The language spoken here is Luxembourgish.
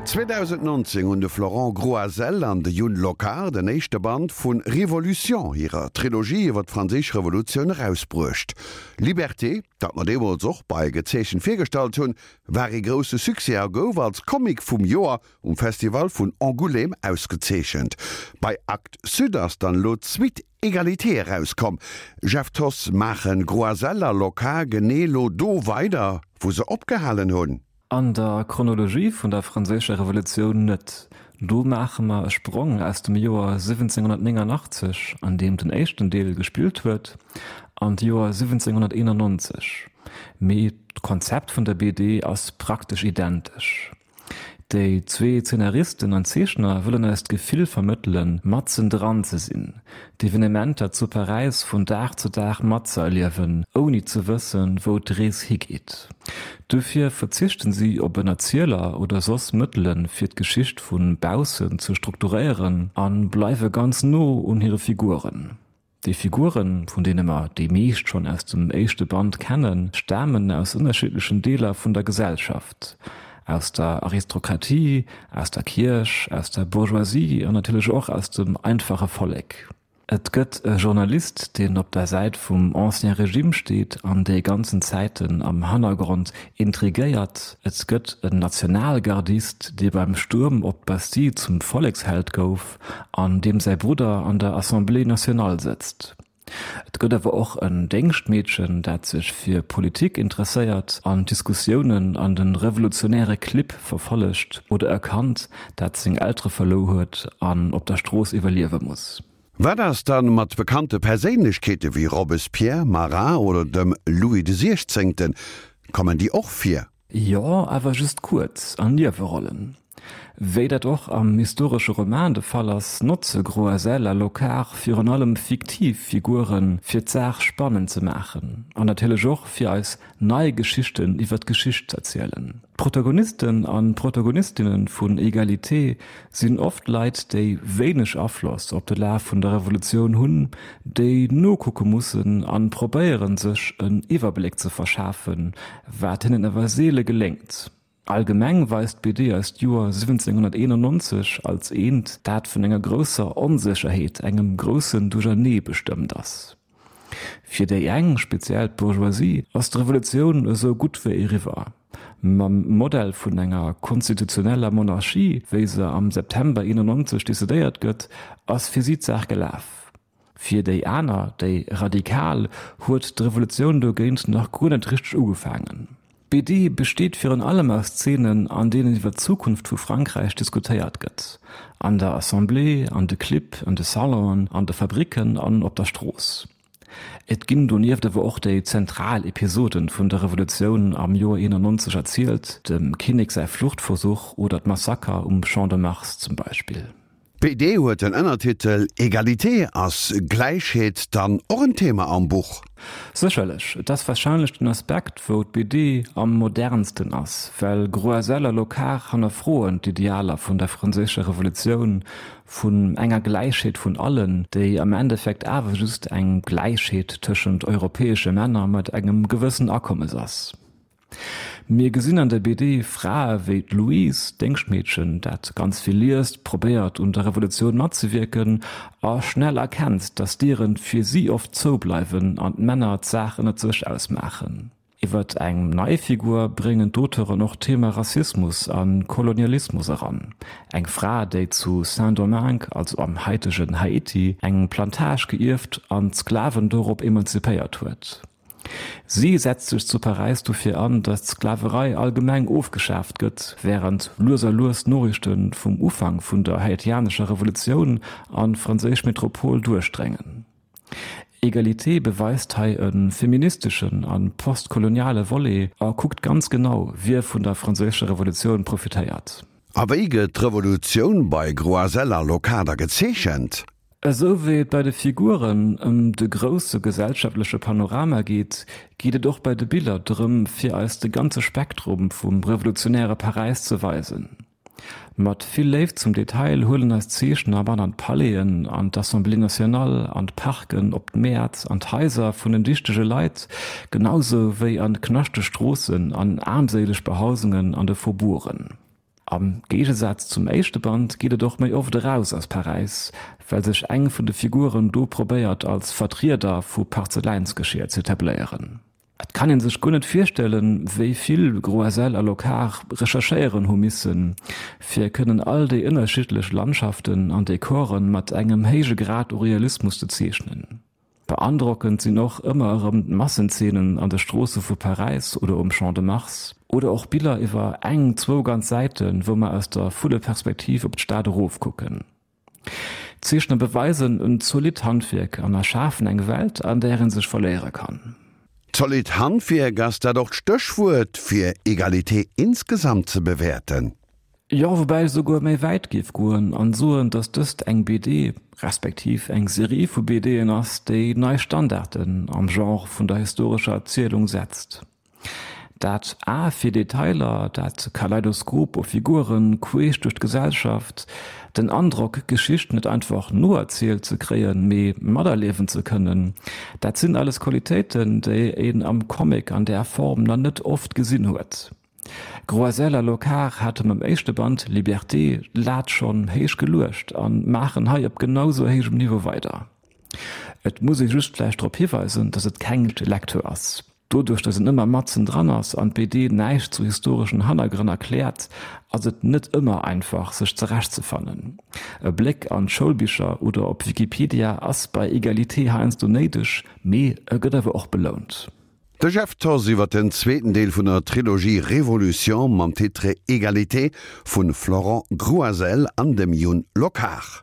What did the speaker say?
2019 hunn de Florent Groisel an de Youn Locard den éischte Band vu Révolution, hirer Trilogie iwwer d'Franséisch Revolutioun, erausbruecht. Liberté, dat mer deemools och bei Gezeechent virgestallt hunn, war ee grousse Succès a gouf als Comic vum Joer um Festival vun Angoulême ausgezeechent. Bei Actes Sud ass dann elo d'Suite Égalité erauskomm. Jeff Thoss, Maachen Groisel a Locard genee elo do weider, wou se opgehalen hunn? An der Chronologie vun der Franséischer Revolutioun net. Do maache mer e Sprong aus dem Joer 1789, an deem den éischten Deel gespillt huet, an d'Joer 1791. Mee d'Konzept vun der BD ass praktesch identesch. Déi zwee Zeenaristen an Zeechner wëllen eis d'Gefill vermëttelen, matzen dran ze sinn, d'Evenementer zu Paräis vun Dag zu Dag matzëerliewen, ouni ze wëssen, wou d'Rees higeet. Dofir verzichten si op en Erzieler oder soss Mëttelen, fir d'Geschicht vu baussen ze strukturéieren a bleiwe ganz no un hire Figuren. Déi Figuren, vun deene mer déi meescht schonn aus dem éischte Band kennen, stamen aus ënnerschiddlechen Deeler vun der Gesellschaft, aus der Aristokratie, aus der Kierch, aus der Bourgeoisie an natierlech och aus dem einfache Vollek. Et gëtt e Journalist, deen op der Säit vum Ancien Régime steet an déi ganzen Zäiten am Hannergrond intrigéiert. Et gëtt en Nationalgardist, dee beim Stuerm op d'Bastille zum Volleksheld gouf. An deem säi Brudder an der Assemblée nationale sëtzt. Et gëtt awer och en Déngschtmeedchen, dat sech fir Politik interesséiert an d'Diskussiounen an de revolutionäre Clibb verfollegt, oder e Kand, dat seng Eltere verlouer huet an op der Strooss iwwerliewe muss. Wat ass dann mat bekannte Perséinlechkeete wéi Robespierre, Marat oder dem Louis de Siechzéngten? Kommen déi och vir? Jo, awer just kuerz, an Niewerollen. Wéi dat och am historesche Roman de Fall ass, notze Groisel a Locard virun allem fiktiv Figuren, fir d'Saach spannend ze maachen an natierlech och fir eis nei Geschichten iwwer d'Geschicht z'erzielen. D'Protagonisten an d'Protagonistinne vun Egalité sinn oft Leit, déi wéineg Afloss op de Laf vun der Revolutioun hunn, déi nokucke mussen an probéieren, sech en Iwwerbléck ze verschafen, wat hinnen awer seele geléngt. Allgemeng weist d'BD eis d'Joer 1791 als eent, dat vun enger grousser Onsécherheet, engem groussen Duerchernee bestëmmt ass. Fir déi eng, speziell d'Bourgeoisie, ass d'Revolutioun esou gutt wéi eriwwer. Mam Modell vun enger konstitutioneller Monarchie, wéi se am September 91 decidéiert gëtt, ass fir si d'Saach gelaf. Fir déi aner, déi Radikal, huet d'Revolutioun dogéint nach guer net richteg ugefaangen. D'BD besteet virun allem aus Zeenen, an deenen iwwer d'Zukunft vu Frankräich diskutéiert gëtt, an der Assemblée, an de Clibb, an de Salonen, an de Fabricken an op der Strooss. Et ginn donieft awer och déi zentral Episoden vun der Revolutioun am Joer 91 erzielt, dem Kinnek säi Fluchtversuch oder d'Massaker um Champ de Mars zum Beispill. D'BD huet den Ënnertitel Egalité. Ass Gläichheet dann och en Thema am Buch? Sécherlech. Et ass warscheinlech den Aspekt, wou d'BD am modernsten ass, well Groisel a Locard hannerfroen d'Idealer vun der franséischer Revolutioun, vun enger Gläichheet vun allen, déi am Endeffekt awer just eng Gläichheet tëschent europäesche Männer mat engem gewëssen Akommes ass. Mir gesinn an der BD Frae wéi d'Louise, d'Déngschtmeedchen, dat ganz vill liest, probéiert un der Revolutioun matzewierken a schnell erkennt, datt d'Dieren fir si oft zoubleiwen an d'Männer d'Saach ënnert sech ausmaachen. Iwwert eng nei Figur bréngen d'Auteuren och d'Thema Rassismus a Kolonialismus eran, eng Fra, déi zu Saint-Domingue, also am haitegen Haiti, eng Plantage geierft an d'Sklaven dorop emanzipéiert huet. Si setzt sech zu Paräis dofir an, datt d'Sklaverei allgemeng ofgeschaaft gëtt, wärend lues a lues d'Noriichte vum Ufank vun der haitianescher Revolutioun an d'franséisch Metropol duerchdréngen. Egalité beweist hei e feministeschen a postkoloniale Volet a kuckt ganz genau, wie vun der franséischer Revolutioun profitéiert. A wéi gëtt d'Revolutioun bei Groisel a Locard gezeechent? Esou wéi et bei de Figuren ëm de grousse gesellschaftleche Panorama geet, geet et och bei de Biller drëm, fir eis de ganze Spektrum vum revolutionäre Paräis ze weisen. Mat vill Léift zum Detail huelen eis d'Zeechner mat an d'Palaisen, an d'Assemblée nationale, an d'Parken, op d'Mäert, an d'Haiser vun den dichtege Leit, genausou wéi an knaschteg Stroossen, an aarmséileg Behausungen an de Faubourgen. Am Géigesaz zum éischte Band geet et och méi oft eraus aus Paräis, well sech eng vun de Figuren do probéiert als Vertrieder vu Parzeläinsgeschier z'etabléieren. Et kann een sech guer net virstellen, wéi vill Groisel a Locard recherchéieren hu missen, fir kënnen all déi ënnerschiddlech Landschaften an Dekoren mat engem héije Grad u Realismus ze zeechnen. Beandrockend sinn och ëmmer erëm d'Massenzeenen an de Stroosse vu Paräis oder um Champ de Mars, oder och Biller iwwer eng, zwou ganz Säiten, wou mer aus der Vulleperspektiv op d'Stad erofkucken. D'Zeechner beweisen en zolidd Handwierk an erschafen eng Welt, an där ee sech verléiere kann. Zolidd Handwierk, ass dat och d'Stéchwuert, fir Egalité insgesamt ze bewäerten? Jo, woubäi ech esouguer méi wäit géif goen an soen, dass dëst eng BD, respektiv eng Serie vu BDen ass, déi nei Standarden am Genre vun der historescher Erzielung setzt. Dat A fir Detailer, dat Kaleidoskop u Figuren queesch duerch d'Gesellschaft, den Androck, d'Geschicht net einfach noerzielt ze kréien, mee materliewen ze kënnen, dat sinn alles Qualitéiten, déi een am Comic an där Form nach net oft gesinn huet. Groisel a Locard hate mam éischte Band Liberté d'Lat schonn héich geluecht a maachen hei op genau sou héijem Niveau weider. Et muss ee just vläicht drop hiweisen, datt et keng Lecture ass. Doduerch, datt een ëmmer matzen dran ass an d'BD näischt zu historeschen Hannergrënn erkläert, ass et net ëmmer einfach, sech zerechtzefannen. E Bléck an d'Schoulbicher oder op Wikipedia ass bei Egalité heiansdo néideg, mee e gëtt awer och belount. De Jeff Thoss iwwer den zweeten Deel vun der Trilogie Révolution mam Titre Égalité vun Florent Grouazel an dem Youn Locard.